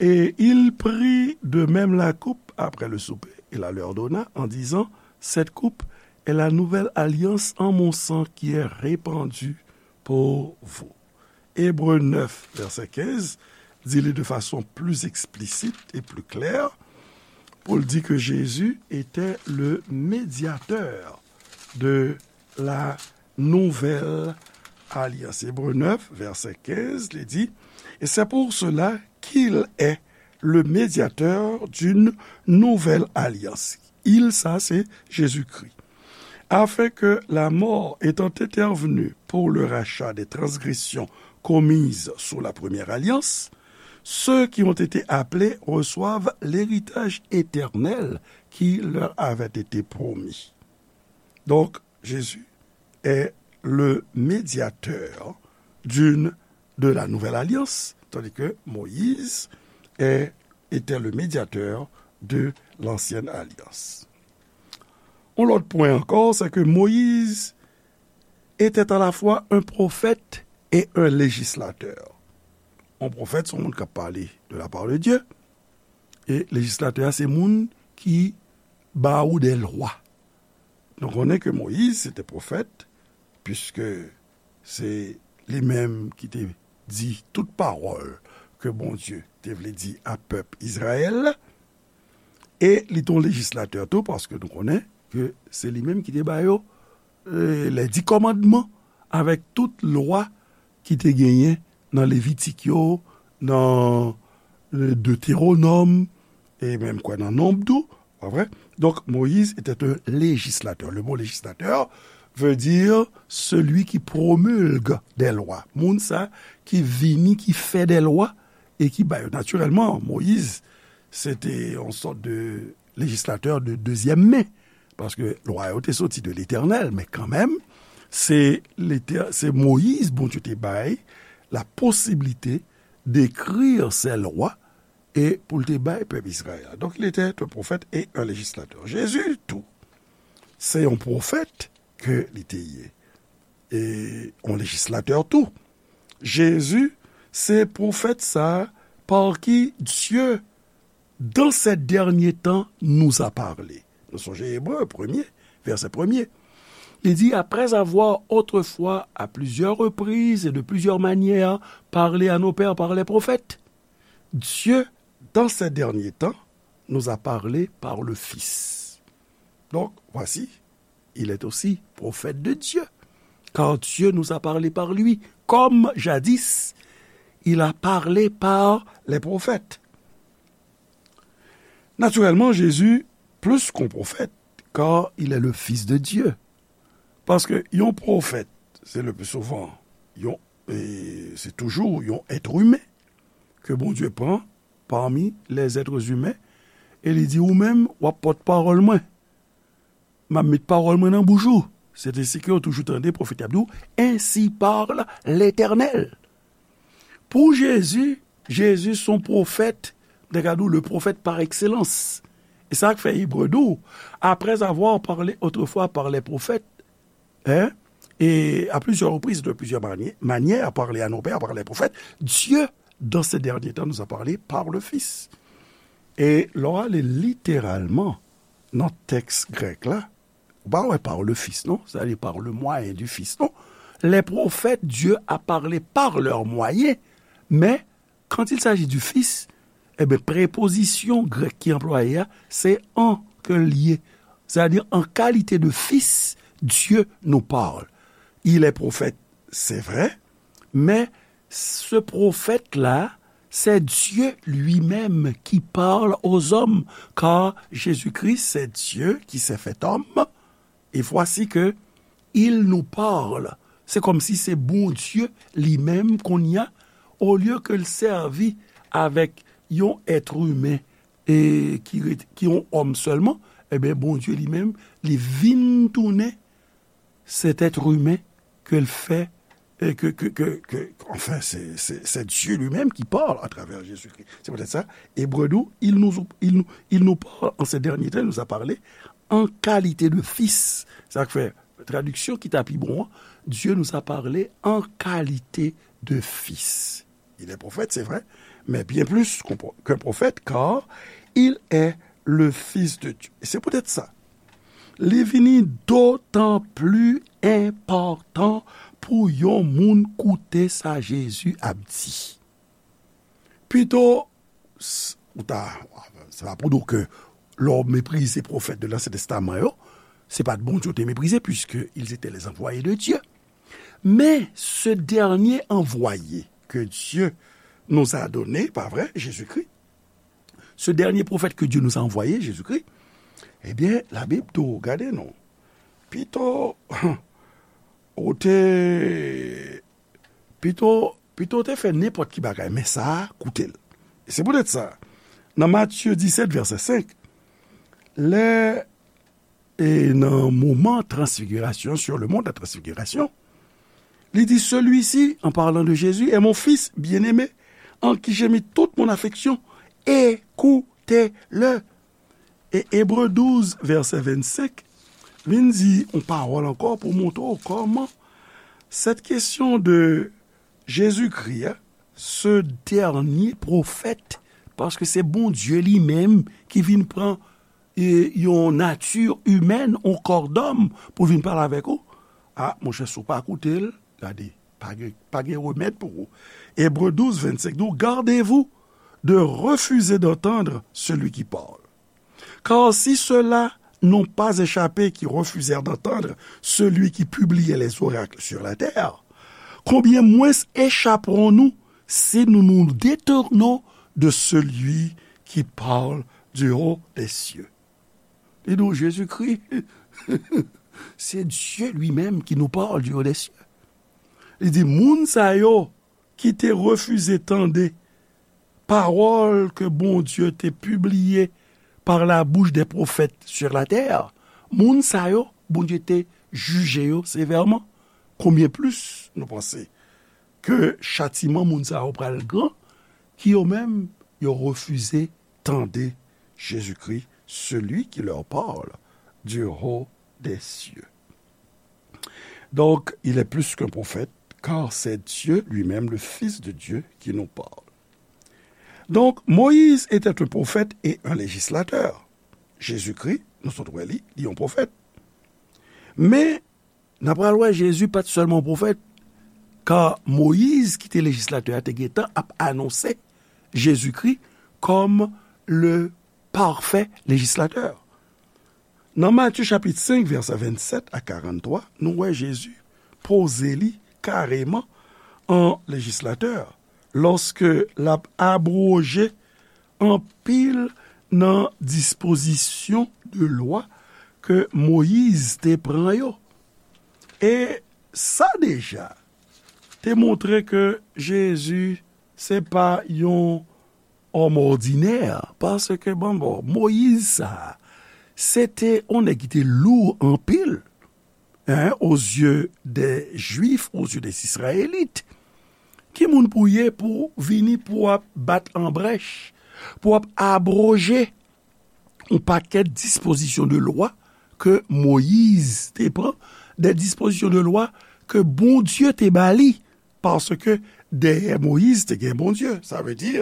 Et il prit de même la coupe après le souper, et la leur donna, en disant, cette coupe est la nouvelle alliance en mon sang qui est répandue pour vous. Hébreux neuf, verset quinze, di li de fason pli eksplisit e pli klè, pou l di ke Jésus était le médiateur de la nouvelle alliance. Hébreux neuf, verset quinze, li di, et c'est pour cela qu'il est le médiateur d'une nouvelle alliance. Il, sa, se Jezikri. Afin que la mort étant intervenue pour le rachat des transgressions commises sous la première alliance, ceux qui ont été appelés reçoivent l'héritage éternel qui leur avait été promis. Donc, Jésus est le médiateur d'une, de la nouvelle alliance, tandis que Moïse est, était le médiateur de l'ancienne alliance. Un autre point encore, c'est que Moïse était à la fois un prophète et un législateur. Un prophète, se yon moun k ap pale de la part de Dieu, e lejislatè a, se moun ki ba ou des lois. Nou konnen ke Moyiz se te pwofèt, piske se li menm ki te di tout pawòl ke Bondye te vle di a pèp Izrayèl, e li te yon lejislatè tou, paske nou konnen ke se li menm ki te ba yo, e, les dix commandements, avèk tout lwa ki te genyen nan Levitik yo, nan, e, Detewonòm, e menm kwè nan Nonb tou, pa vre? Donc, Moïse était un législateur. Le mot législateur veut dire celui qui promulgue des lois. Moun sa ki vini, ki fè des lois e ki ba yo. Natirèlman, Moïse, se te yon sòt de lejislatè de dezyèm men, paske lwa yo te soti de Letènèl, men kanmenm, se Letè-, se Moyiz Bondye te bay la posiblite d'écrire ces lois e pou l te bay pèp Izrayèl la. Donc, il était un prophète et un législateur. Jésus, tou, se yon pwofèt ke li te ye, e yon lejislatè tou. Jezi, se pwofèt sa a par qui Dieu, dans ces derniers temps, nous a parlé. Nou sonje Ebre premye, vèsè premye. Li di, après avoir autrefois, à plusieurs reprises et de plusieurs manières, parlé à nos pères par les prophètes, Dieu, dans ces derniers temps, nous a parlé par le Fils. Donc, voici, il est aussi prophète de Dieu, car Dieu nous a parlé par lui, comme jadis, il a parlé par les prophètes. Naturellement, Jésus, plus qu'un prophète, car il est le Fils de Dieu. Paske yon pwofèt, se le plus souvent, yon, e se toujou yon èt imen ke Bondye pran parmi les êtres humains, e li di, ou menm, w ap pòt pawòl mwen. M ap met pawòl mwen nan bouch ou. Se te si ke yo toujou tande pwofèt y ap di w, ainsi parle l'Éternel. Pou Jezi, Jezi se yon pwofèt, m te ka di w, le prophète par excellence. E sa k fè Ebre di w, après avoir parlé autrefois par les prophètes, hein, et à plusieurs reprises, de plusieurs mani-, manières, parlé à nos pères par les prophètes, Dieu, dans ces derniers temps, nous a parlé par le Fils. E lè w ale literalman nan tèks grèk la, ou pa wè par le Fils, non? Sa vle di par le moyen du Fils, non? Les prophètes, Dieu a parlé par leur moyen, mais quand il s'agit du Fils, eh ben, prepozisyon grèk ki anplwaye a, se an ke l ye. Sa vle di, en qualité de fils, Dieu nous parle. Il est prophète, c'est vrai, mais ce prophète-là, c'est Dieu lui-même qui parle aux hommes, car Jésus-Christ, c'est Dieu qui s'est fait homme, et voici que il nous parle. Se kòmsi se Bondye li menm kounye a, olye ke l sèvi avèk yon èt imen e ki ret-, ki yon òm sèlman, ebyen, Bondye li menm, li vin tounen cet être humain ke l fè, e ke, ke, ke, ke, enfin, c'est, c'est, c'est Dieu lui-même qui parle à travers Jésus-Christ. C'est peut-être ça. Ebre di w, il nous, il nous, il nous parle en ces derniers temps, il nous a parlé en qualité de fils. Sa k fè, tradiksyon ki ta pi bon an, Dieu nous a parlé en qualité de fils. Il est prophète, c'est vrai, mais bien plus qu'un pro-, qu'un prophète, car il est le Fils de Dieu. E se poutèt sa, li vini dotan pli enpòtan pou yon moun koute sa Jezi ap di. Pito, s- ou ta, se pa pou di w ke lè w meprize pwofèt de Lansyen Testaman yo, se pa t Bondye w te meprize, puisque ils étaient les envoyés de Dieu. Mais ce dernier envoyé que Dieu nous a donné, pa vre, Jésus-Christ, ce dernier prophète que Dieu nous a envoyé, Jésus-Christ, ebyen, Labib tou, gade non. Pito, ou te, pito, pito te fè nenpòt ki bagay, men sa a, koute l. E se poutèt sa, nan Matye disèt, vèsè senk, lè, e nan moman transfigirasyon, sur le mont de la transfiguration, li di, celui-ci, en parlant de Jésus, est mon fils bien-aimé, en qui j'ai mis toute mon affection, écoutez-le. E Ebre douz, vèsè vennsenk, vin di yon pawòl ankò pou montre w kòman cette question de Jésus-Christ, ce dernier prophète, paske se Bondye li menm ki vin pran, e, yon nati imèn, yon kò dòm pou vin pale avèk ou. A, monchè, si w pa koute l, gade, pa gen, pa gen remèd pou ou. Ebre douz, vennsenk di w, gardez-vous de refuser d'entendre celui qui parle. Car si ceux-là n'ont pas échappé qui refusèrent d'entendre celui qui publiait les oracles sur la terre, combien moins échapperons-nous si nous nous détournons de celui qui parle du haut des cieux? Li di w, Jezikri, se Dye li menm ki nou parle du haut des cieux. Li di, moun sa yo ki te refize tande pawòl ke Bondye te pibliye par la bouche des prophètes sur la terre, moun sa yo, Bondye te jije yo sevèman. Konbyen plis nou panse ke chatiman moun sa yo pral gran, ki yo menm, yo refize tande Jezikri, celui qui leur parle du haut des cieux. Donc, il est plus qu'un prophète, car c'est Dieu lui-même, le Fils de Dieu, qui nous parle. Donc, Moïse était un prophète et un législateur. Jezikri, nou sot wè li, li yon pwofèt. Men, n a pral wè Jezi pa t sèlman yon pwofèt, ka Moyiz, ki te lejislatè a, te gentan ap anonse Jezikri kòm le parfait législateur. Nan Matye chapit senk, vèsè vennsèt a karanntwa, nou wè Jezi poze li kareman an lejislatè, lòske l ap abwoje anpil nan dispozisyon de lwa ke Moyiz te pran yo. E sa deja te montre ke Jezi se pa yon òm òdinè, paske, bon, bon, Moyiz sa, se te yon nèg ki te lou anpil, hein, aux yeux des Juifs, aux yeux des Israélites. Ki moun pou w ye pou w vini pou w ap bat an brèch, pou w ap abwoje yon pakèt dispozisyon de lwa ke Moyiz te pran, de dispozisyon de lwa ke Bondye te ba li, paske dèyè Moyiz te gen Bondye. Sa vle di,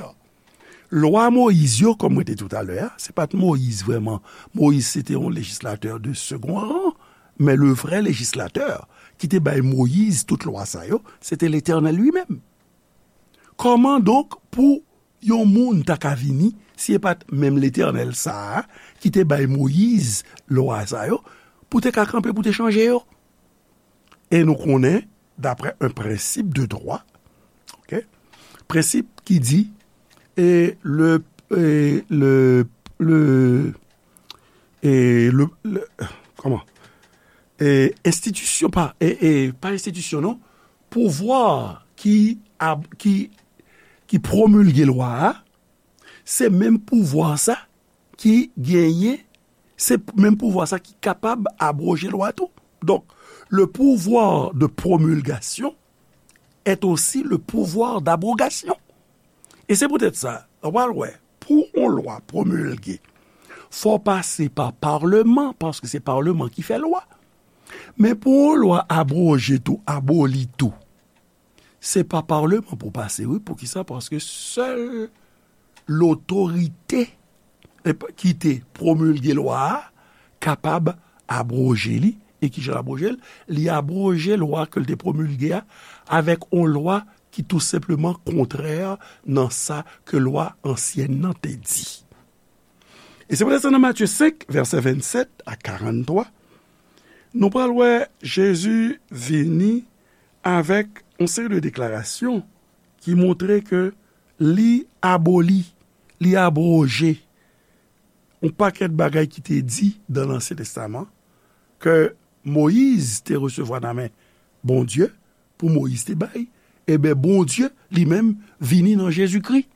lwa Moyiz yo, kòm mwen te di w talè a, se pa t Moyiz vrèman. Moyiz se te yon lejislatè de second rang, men le vrè lejislatè ki te bay Moyiz tout lwa sa yo, se te Letènèl li menm. Kòman donk pou yon moun ta ka vini, si e pa t menm Letènèl sa a ki te bay Moyiz lwa sa yo, pou te ka kanpe, pou te chanje yo? E nou konnen, d'après un principe de droit, ok, prensip ki di, e le, e le, le, e le, le, kòman? E enstitisyon pa, e, e pa enstitisyon, non, pouvwa ki, ab- ki, ki pwomilge lwa a, se menm pouvwa sa ki genyen, se menm pouvwa sa ki kapab abwoje lwa tou. Donk, le pouvoir de promulgation est aussi le pouvoir d'abrogation. E se poutèt sa, w pral wè, pou yon lwa pwomilge, fò pase pa palman, paske se palman ki fè lwa. Men pou yon lwa abwoje tou, aboli tou, se pa palman pou pase, wi. Poukisa? Paske sèl lotorite, e, ki te pwomilge lwa a kapab abwoje li. E kijan l abwoje l? Li abwoje lwa ke l te pwomilge a avèk yon lwa ki tou senpleman kontrè nan sa ke lwa ansyèn nan te di. E se poutèt sa nan Matye senk, vèsè vennsèt a karanntwa, nou pral wè Jezi vini avèk yon seri de deklarasyon ki montre ke li aboli, li abwoje yon pakèt bagay ki te di dan Lansyen Testaman ke Moyiz te resevwa nan men Bondye, pou Moyiz te bay, ebyen, Bondye li menm vini nan Jezikri,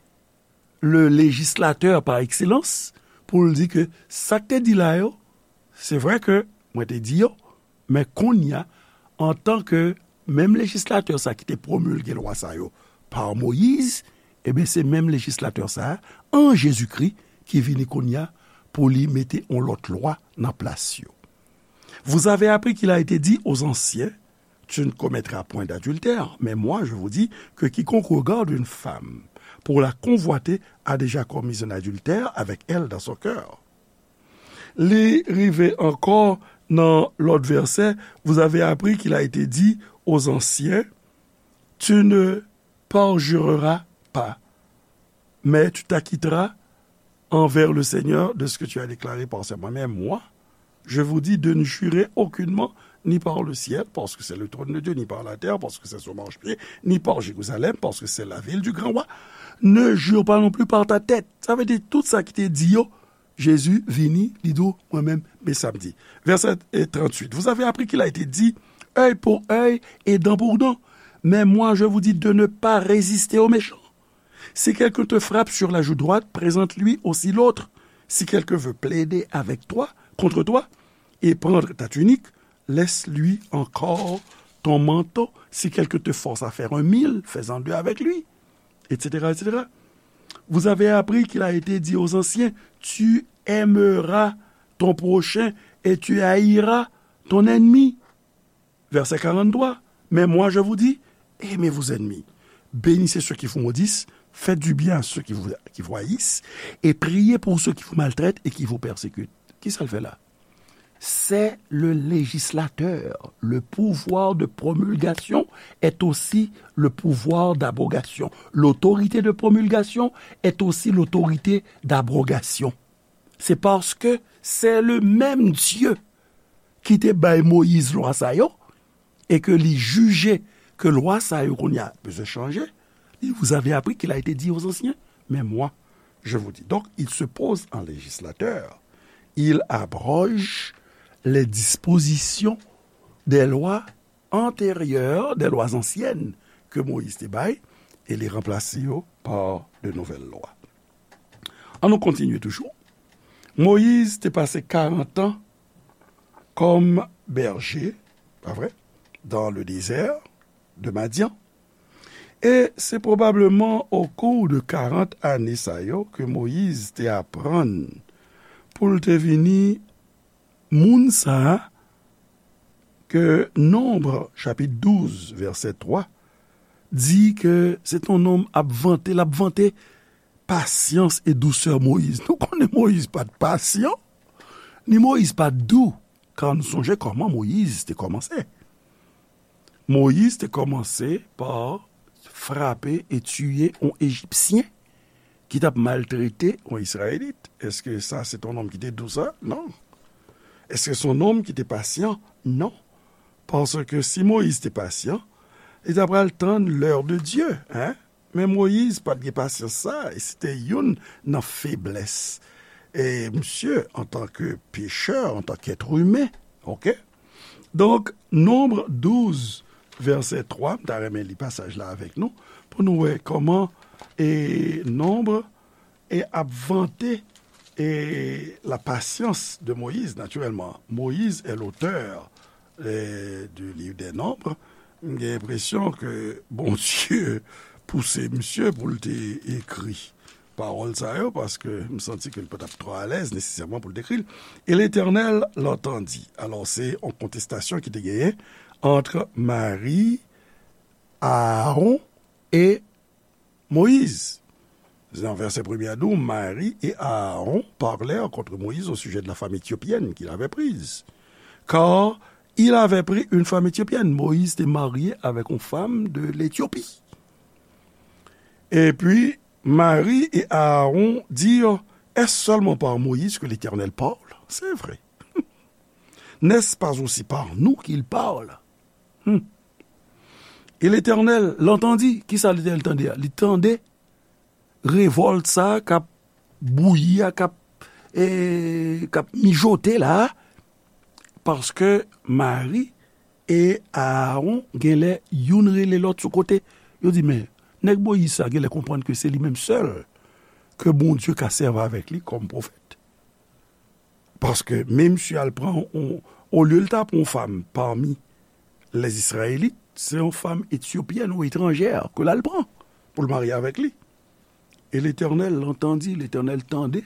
le législateur par excellence, pou l di ke sa k te di la yo, se vre ke mwen te di yo, men kounye a, antanke menm lejislatè sa ki te pwomilge lwa sa yo pa Moyiz, ebyen, se menm lejislatè sa a, an Jezikri, ki vini kounye a pou li mete yon lòt lwa nan plas yo. Vous avez appris qu'il a été dit aux anciens, tu ne commettras point d'adultère, mais moi, je vous dis que quiconque regarde une femme pour la convoiter a déjà commis un adultère avec elle dans son cœur. Li rive ankò nan lòt vèsè, vous avez appris qu'il a été dit aux anciens, tu ne parjureras pas, mais tu t'acquitteras envers le Seigneur de ce que tu as déclaré par serment. Mais moi, je vous dis de ne jurer aucunement, ni par le ciel, parce que c'est le trône de Dieu, ni par la terre, parce que c'est son marchepied, ni par Jérusalem, parce que c'est la ville du grand roi. Ne jure pas non plus par ta tête. Sa vle di tout sa ki te di yo, Jezi vini, li di w, mwen menm, men sa m di. Vèsè tranntuit. Vous avez appris qu'il a été dit, œil pour œil et dent pour dent. Mais moi, je vous dis de ne pas résister au méchant. Si quelqu'un te frappe sur la joue droite, présente-lui aussi l'autre. Si quelqu'un veut plaider avec toi, contre toi, et prendre ta tunique, laisse-lui encore ton manteau. Si quelqu'un te force à faire un mille, fais-en deux avec lui, et cetera, et cetera. Vous avez appris qu'il a été dit aux anciens, tu aimeras ton prochain et tu haïras ton ennemi. Verset quarante-trois. Mais moi, je vous dis, aimez vos ennemis. Bénissez ceux qui vous maudissent, faites du bien à ceux qui vous, qui vous haïssent, et priez pour ceux qui vous maltraitent et qui vous persécutent. Kisa l fè la? C'est le législateur. Le pouvoir de promulgation est aussi le pouvoir d'abrogation. L'autorité de promulgation est aussi l'autorité d'abrogation. C'est parce que c'est le même Dieu ki te bay Moyiz lwa sa yo, e ke li jije ke lwa sa yo kounye a bezwen chanje, li, vous avez appris qu'il a été dit aux anciens, mais moi, je vous dis. Donc, il se pose en législateur. Il abroge les dispositions des lois antérieures, des lois anciennes que Moïse te bay, e li ranplase yo par de nouvelles lois. An nou kontinye toujou. Moyiz te pase karant an kòm bèje, pa vre, dans le désert de Madian. E se pwobableman au cours de karant ane sa yo ke Moyiz te aprann pou l te vini moun sa a ke Nonb, chapit douz, vèsè twa, di ke se t on nonm ap vante, l ap vante pasyans e dousè Moyiz. Nou konnen Moyiz pa t pasyan, ni Moyiz pa t dou, ka nou sonje kòman Moyiz te kòmanse. Moyiz te kòmanse pa frape e tiye on Ejipsyen ki t ap maltrete on Izrayelit. Èske sa se t on nonm ki te dou sa? Non. Èske se on nonm ki te pasyan? Non. Paske si Moyiz te pasyan, li ta pral tann l'heure de Dieu, hein? Men Moyiz pa t gen pasyans sa, e se te youn nan feblès e misye antanke pechè, antanke èt imen, oke? Donk, Nonb douz, vèsè twa, m ta renmen li pasaj la avèk nou, pou nou wè kòman e Nonb e ap vante e la patience de Moïse, naturellement. Moïse est l'auteur, euh, du livre des Nombres. M gen enpresyon ke Bondye pouse misye pou l te ekri pawòl sa yo, paske m santi ke l pa t ap twò alèz nesesèman pou l te ekri l. Et l'Éternel l'entendit. Alò, se yon kontestasyon ki te genyen ant Mari, Aaron e Moïse. Dans verset premier à douze, Marie et Aaron parlèrent contre Moïse au sujet de la femme éthiopienne qu'il avait prise. Car il avait pris une femme éthiopienne. Moïse était marié avec une femme de l'Éthiopie. Et puis, Marie et Aaron dirent, Est-ce seulement par Moïse que l'Éternel parle ? C'est vrai. N'est-ce pas aussi par nous qu'il parle ? Hmm. Et l'Éternel l'entendit. Kisa Letènèl tande a? Li tande revòlt sa a k ap bouyi a, k ap, e, k ap mijote la a, paske Mari e Aaron genlè youn rele lòt sou kote. Yo di, men, nèg Moyiz sa genlè konprann ke se li menm sèl ke Bondye ka sèvi avèk li kòm pwofèt. Paske men misye al pran, on, olye l ta pran yon fanm pami les Israélites, se yon fanm etyopyèn ou etranjè ke l al pran pou l marye avèk li. Et l'Éternel l'entendit, Letènèl tande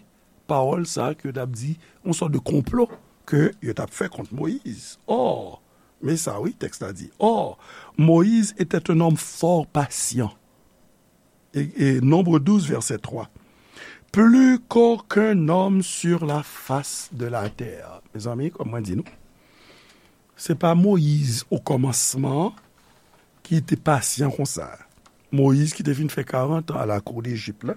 pawòl sa ke yo t ap di, yon sòt de konplo ke yo t ap fè kont Moyiz. Or, men sa wi, tèks la di, Or, Moïse était un homme fort patient. E, e, Nombre douze, verset trois. Plus qu'aucun homme sur la face de la terre. Mezanmi, kòm mwen di nou, se pa Moyiz okòmansman ki te pasyan konsa. Moyiz ki te fin fè karant an alakou Dejip la,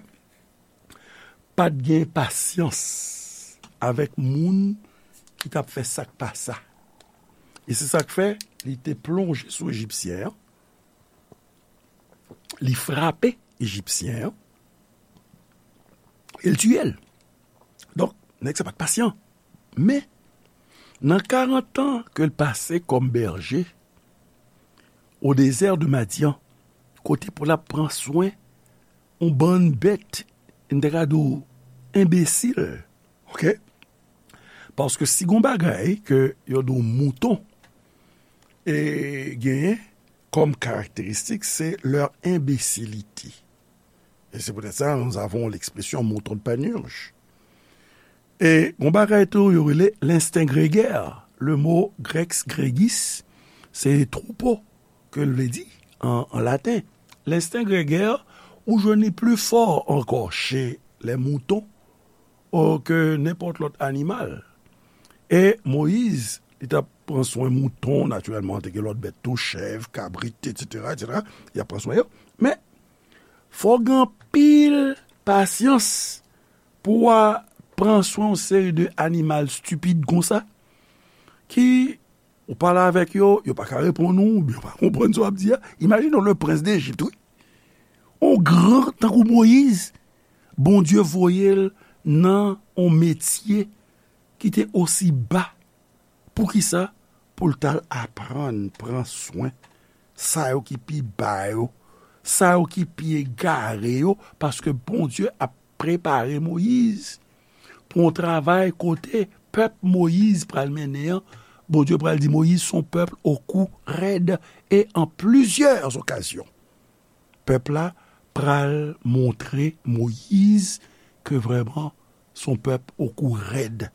pa t gen pasyans avèk moun ki t ap fè sa k pa sa. E se sa k fè li te plonje sou Ejipsyen an, li frape Ejipsyen an, e l tiye l. Donk, nèg sa pa t pasyan. Men, nan karant an ke l pase kòm bèje, au désert de Madian, kote pou l ap pran swen yon bann bèt, m te ka di w, enbesil, oke? Paske si gon bagay ke yo di w mouton, e, genyen kòm karakteristik, se leur imbécilité. Et c'est peut-être ça, nous avons l'expression mouton de Panurge. E gon bagay tou, yo rele l'instinct grégaire. Le mot grec gregis, se troupeau ke l vle di an, an laten. L'instinct grégaire, ou jwenn li pli fò ankò chez les moutons, o, ke nenpòt lòt animal. E Moyiz, li t ap pran swen mouton, natirèlman, te gen lòt bèt tou, chèv, kabrit, etsetera, etsetera. Li ap pran swen yo. Men, fò w gen anpil pasyans pou w a pran swen yon seri de animal stipid konsa, ki ou pale avèk yo, yo pa ka reponn ou, oubyen yo pa konprann sa w ap di a. Imajine w, le prince d'Égypte, wi. On gran tankou Moyiz, Bondye voye l nan on metye ki te osi ba. Poukisa? Pou l t al aprann pran swen sa yo ki pi ba yo, sa yo ki pi egare yo, paske Bondye ap prepare Moyiz pou yon travay kote pèp Moyiz pral mennen an, Bondye pral di Moyiz, c'est un peuple au cou raide et en plusieurs occasions. Pèp la pral montre Moyiz ke vrèman se yon pèp au cou raide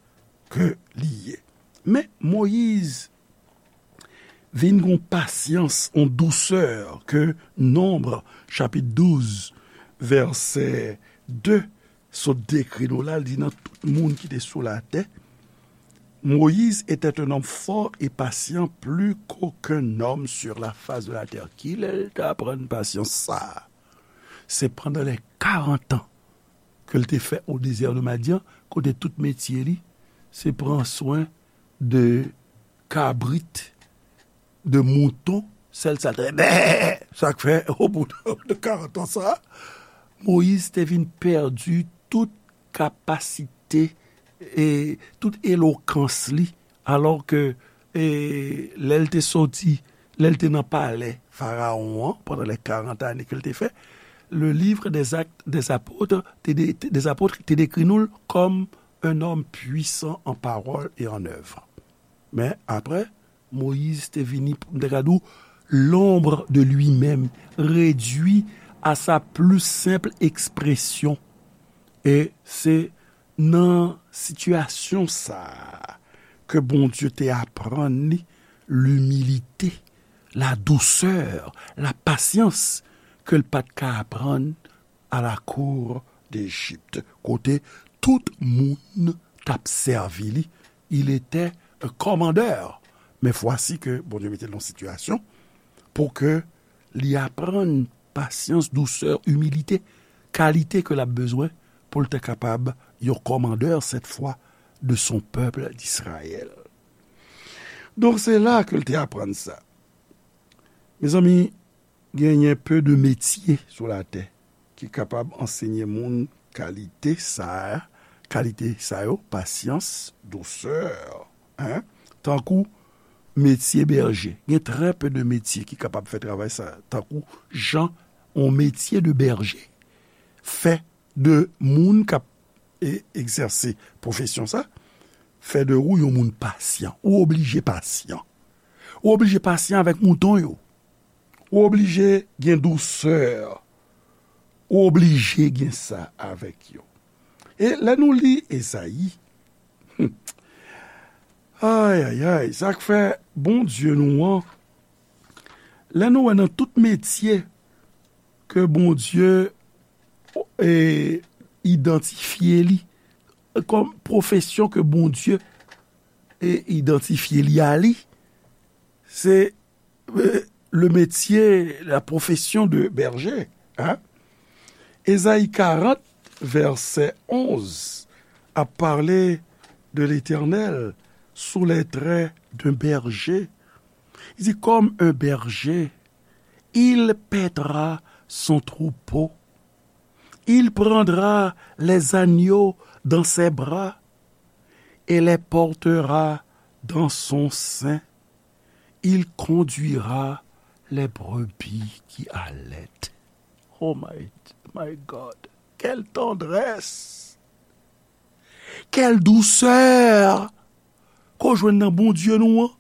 ke li ye. Men Moyiz vin gon pasyans, yon dousè ke Nonb, chapit douz, vèsè de, sot dekri nou la, l di nan tout moun ki te sou latè, Moïse était un homme fort et patient, plus qu'aucun homme sur la face de la terre. Kilè l te aprann pasyans sa a? Se pandan lè karant an ke l te fè o dezè de Madyan, kote tout metye li, se pran swen de kabrit, de mouton, sèl sa l te, bè! Sa k fè, o bout de karant an sa, Moyiz te vin pèdi tout kapasite e tout elokans li, alò ke, e, lè l te soti, lè l te nan palè Farawon an, pandan lè karant ane ke l te fè, le livre des Actes des Apôtres te de-, des Apôtres te dekri nou l kòm un homme puissant en parole et en œuvre. Men apre, Moyiz te vini, m te ka di w, l'ombre de lui-même, réduit à sa plus simple expression. E se nan sitiyasyon sa a ke Bondye te aprann li limilite, la dousè, la pasyans ke l pa t ka aprann à la cour d'Égypte, kote tout moun t ap sèvi li. Il était un commandeur. Men fwasi ke Bondye mete l nan sitiyasyon pou ke li aprann pasyans, dousè, imilite, kalite ke l ap bezwen pou l te kapab yon kòmandè, cette fois, de son peuple d'Israël. Donk, se la ke l te aprann sa. Mezanmi, genyen pe de metye sou latè ki kapab ansenye moun kalite sa a, kalite sa yo, pasyans, dousè, en, tankou metye bèje. Gen trè pe de metye ki kapab fè travay sa, tankou jan yon metye de bèje fè de moun k ap e, egzèse pwofesyon sa, fè de ou yon moun pasyan. Ou oblije pasyan. Ou oblije pasyan avèk mouton yo. Ou oblije gen dousè. Ou oblije gen sa avèk yo. E lè nou li Ezayi, hmm, ay, ay, ay, sa k fè Bondye nou an, lè nou wè nan tout metye ke Bondye e, idantifye li kòm pwofesyon ke Bondye e, idantifye li a li, se e, le métier, la profession de berger. Hein? Ezayi karant, vèsè onz, ap pale de Letènèl sou les traits d'un berger. Il dit, comme un berger, il paîtra son troupeau. Il prendra les agneaux dans ses bras et les portera dans son sein. Il conduira les brebis qui allaitent. Oh my, my God, quelle tendresse! Quelle douceur! Ke w jwenn nan Bondye nou an,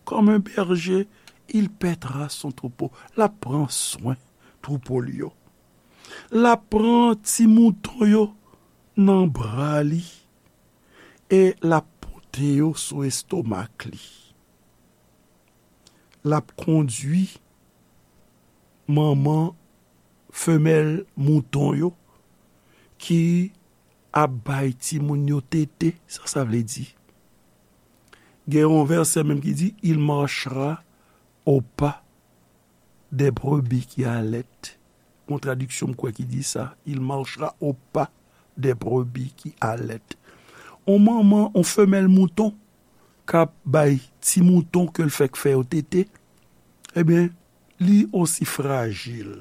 comme un berger, il paîtra son troupeau. L ap pran swen twoupo l yo. L ap pran ti mouton yo nan bra li e l ap pote yo sou estomak li. L ap kondui manman femèl mouton yo ki ap bay timoun yo tete. Sa sa vle di? Gen yon vèsè menm ki di, il marchera au pas des brebis qui allaitent. Yon tradiksyon m kwè ki di sa, il marchera au pas des brebis qui allaitent. On manman, on femèl mouton k ap bay ti mouton ke l fèk fè yo tete, ebyen, li osi frajil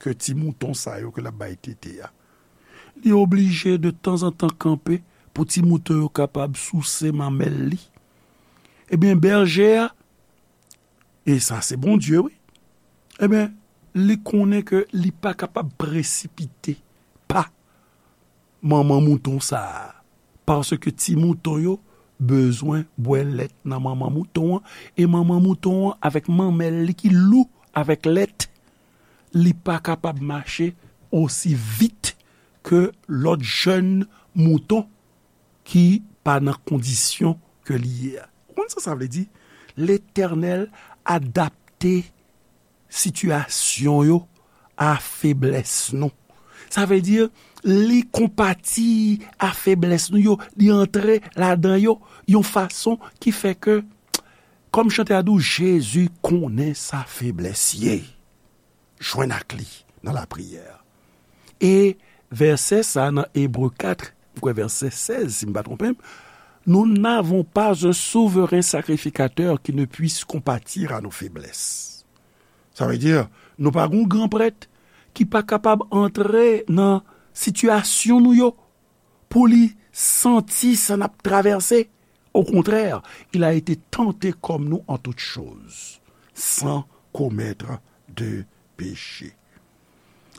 ke ti mouton sa yo ke l ap bay tete a. Li oblije de tanzantan kanpe pou ti mouton yo kapab souse manmèl li. Ebyen, bèje a, e sa se Bondye, wi, ebyen, li konnen ke li pa kapab presipite pa manman mouton sa a, paske ti mouton yo bezwen bwè lèt nan manman mouton an, e manman mouton an avèk manmèl li ki lou avèk lèt, li pa kapab mache osi vit ke lòt jèn mouton ki pa nan kondisyon ke li ye a. Ou konn sa sa vle di? Letènèl adapte sitiyasyon yo a feblès nou. Sa vle di, li konpati a feblès nou yo, li antre ladan yo yon fason ki fè ke, kòm chantè a di w, Jezi konnen sa feblès ye. Jwenn ak li nan lapriyè. E vèsè sa nan Ebre kat, m kwè vèsè sèz, si m pa twonpe m, nous n'avons pas un souverain sacrificateur qui ne puisse compatir à nos faiblesses. Sa vle di, nou pa gen yon gran prèt ki pa kapab antre nan sitiyasyon nou yo pou li santi sa n ap travèse. Au contraire, il a été tenté comme nous en toutes choses, sans commettre de péché.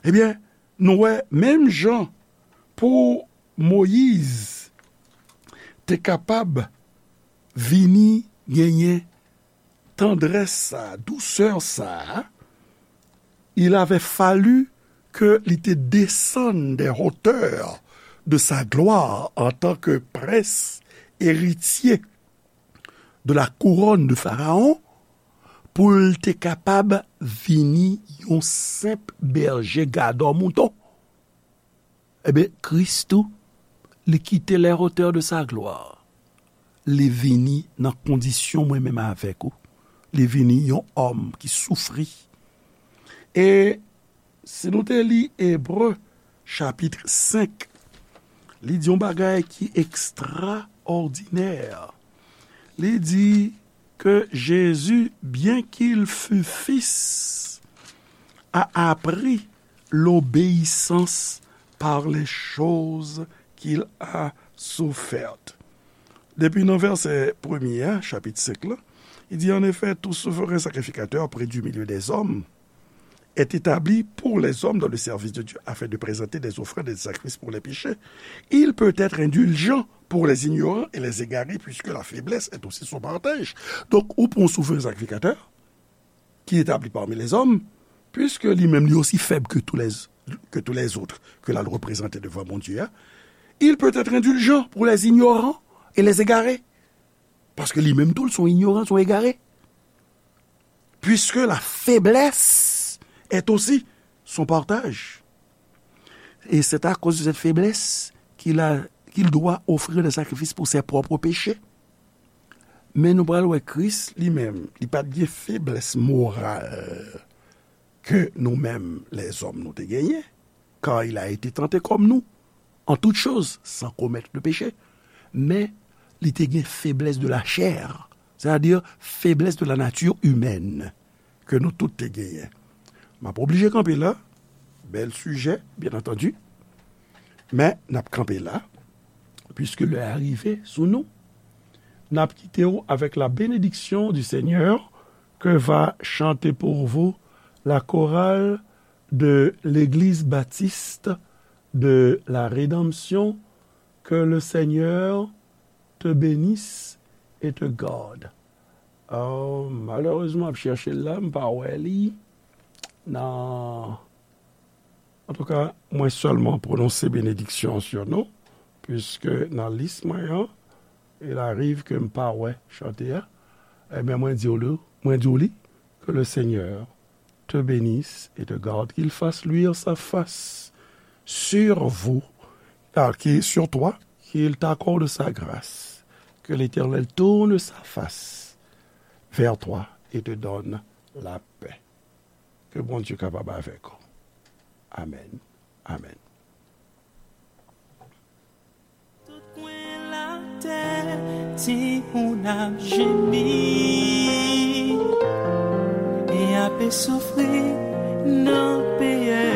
Ebyen, nou wè, menm jan pou Moyiz te kapab vini genyen tandrès sa, dousè sa, il avait fallu ke li te desann des hauteurs de sa gloire en tant que prince héritier de la couronne de Pharaon, pou l te kapab vini yon senp bèje gadò mouton. Ebyen, Kris tou, li kite les hauteurs de sa gloire. Li vini nan kondisyon mwen menm avèk ou. Li vini yon òm ki soufri. E Si nou te li Ebre, chapit senk, li di yon bagay ki ekstraòdinè. Li di que Jésus, bien qu'il fût fils, a appris l'obéissance par les choses qu'il a souffertes. Depi nan vèsè premye a, chapit senk la, li di, en effet, tout souverain sacrificateur près du milieu des hommes est établi pour les hommes dans le service de Dieu afin de présenter des offrandes et des sacrifices pour les péchés. Il peut être indulgent pour les ignorants et les égarés, puisque la faiblesse est aussi son partage. Donk, ou pran yon souverain sacrificateur qui est établi parmi les hommes, puisque li menm li osi fèb ke tou lè, ke tou lèzòt ke l al reprezante devan Bondye a, il peut être indulgent pour les ignorants et les égarés. Paske li menm tou, l se yon ignoran, l se yon egare. Puisque la faiblesse est aussi son partage. Et c'est à cause de cette faiblesse qu'il a, qu'il doit offrir des sacrifices pour ses propres péchés. Men nou pral wè Kris li menm, li pa t gen feblès moral ke nou menm lèzòm nou te genyen, car il a été tenté comme nous, en toutes choses, sans commettre de péché. Men, li te gen feblès de la chair, c'est-à-dire faiblesse de la nature humaine, ke nou tout te genyen. M ap oblije kanpe la, bèl sijè, bien entendu, men n ap kanpe la, puisque lè a rive sou nou. N ap kite w avec la bénédiction du Seigneur que va chanter pour vous la chorale de l'Église baptiste de la Rédemption. Que le Seigneur te bénisse et te garde. Oh, malerezman, m ap chèche l la, m pa wè li nan. Antouka, mwen sèlman pwononse benediksyon sou nou, puiske nan lis mwen an, il arrive ke m pa wè chante a. Ebyen, mwen di w li, mwen di w li, que le Seigneur te bénisse et te garde, qu'il fasse luire sa face sur vous, ah, qui, sur toi, qu'il t'accorde sa grâce, que l'Éternel tourne sa face vers toi et te donne la paix. Ke Bondye kapab avèk ou. Amèn. Amèn. Tout kwen latè, timoun ap jemi e ape soufri nan peyè,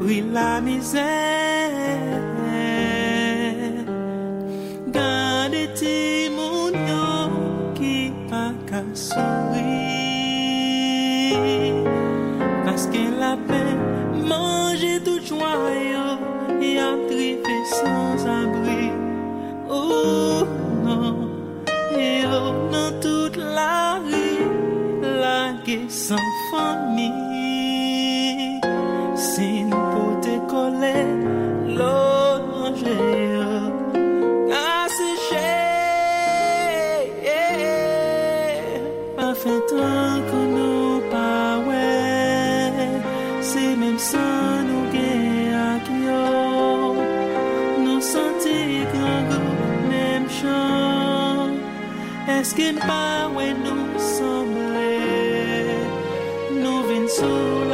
pri lamizè. Gade timoun yo ki pa ka souri, paske lapenn manje tout jwa yo, y ap drive sanzabri. Oh non, yo nan tout lari, lage san fanmi. Si n pote kole, lòt manje yo ka seche. Pa fè tankou nou pa wè, se menm san nou gen ak yo. Nou santi grangou menm jan. Èske n pa wè nou sanble? Nou vin sou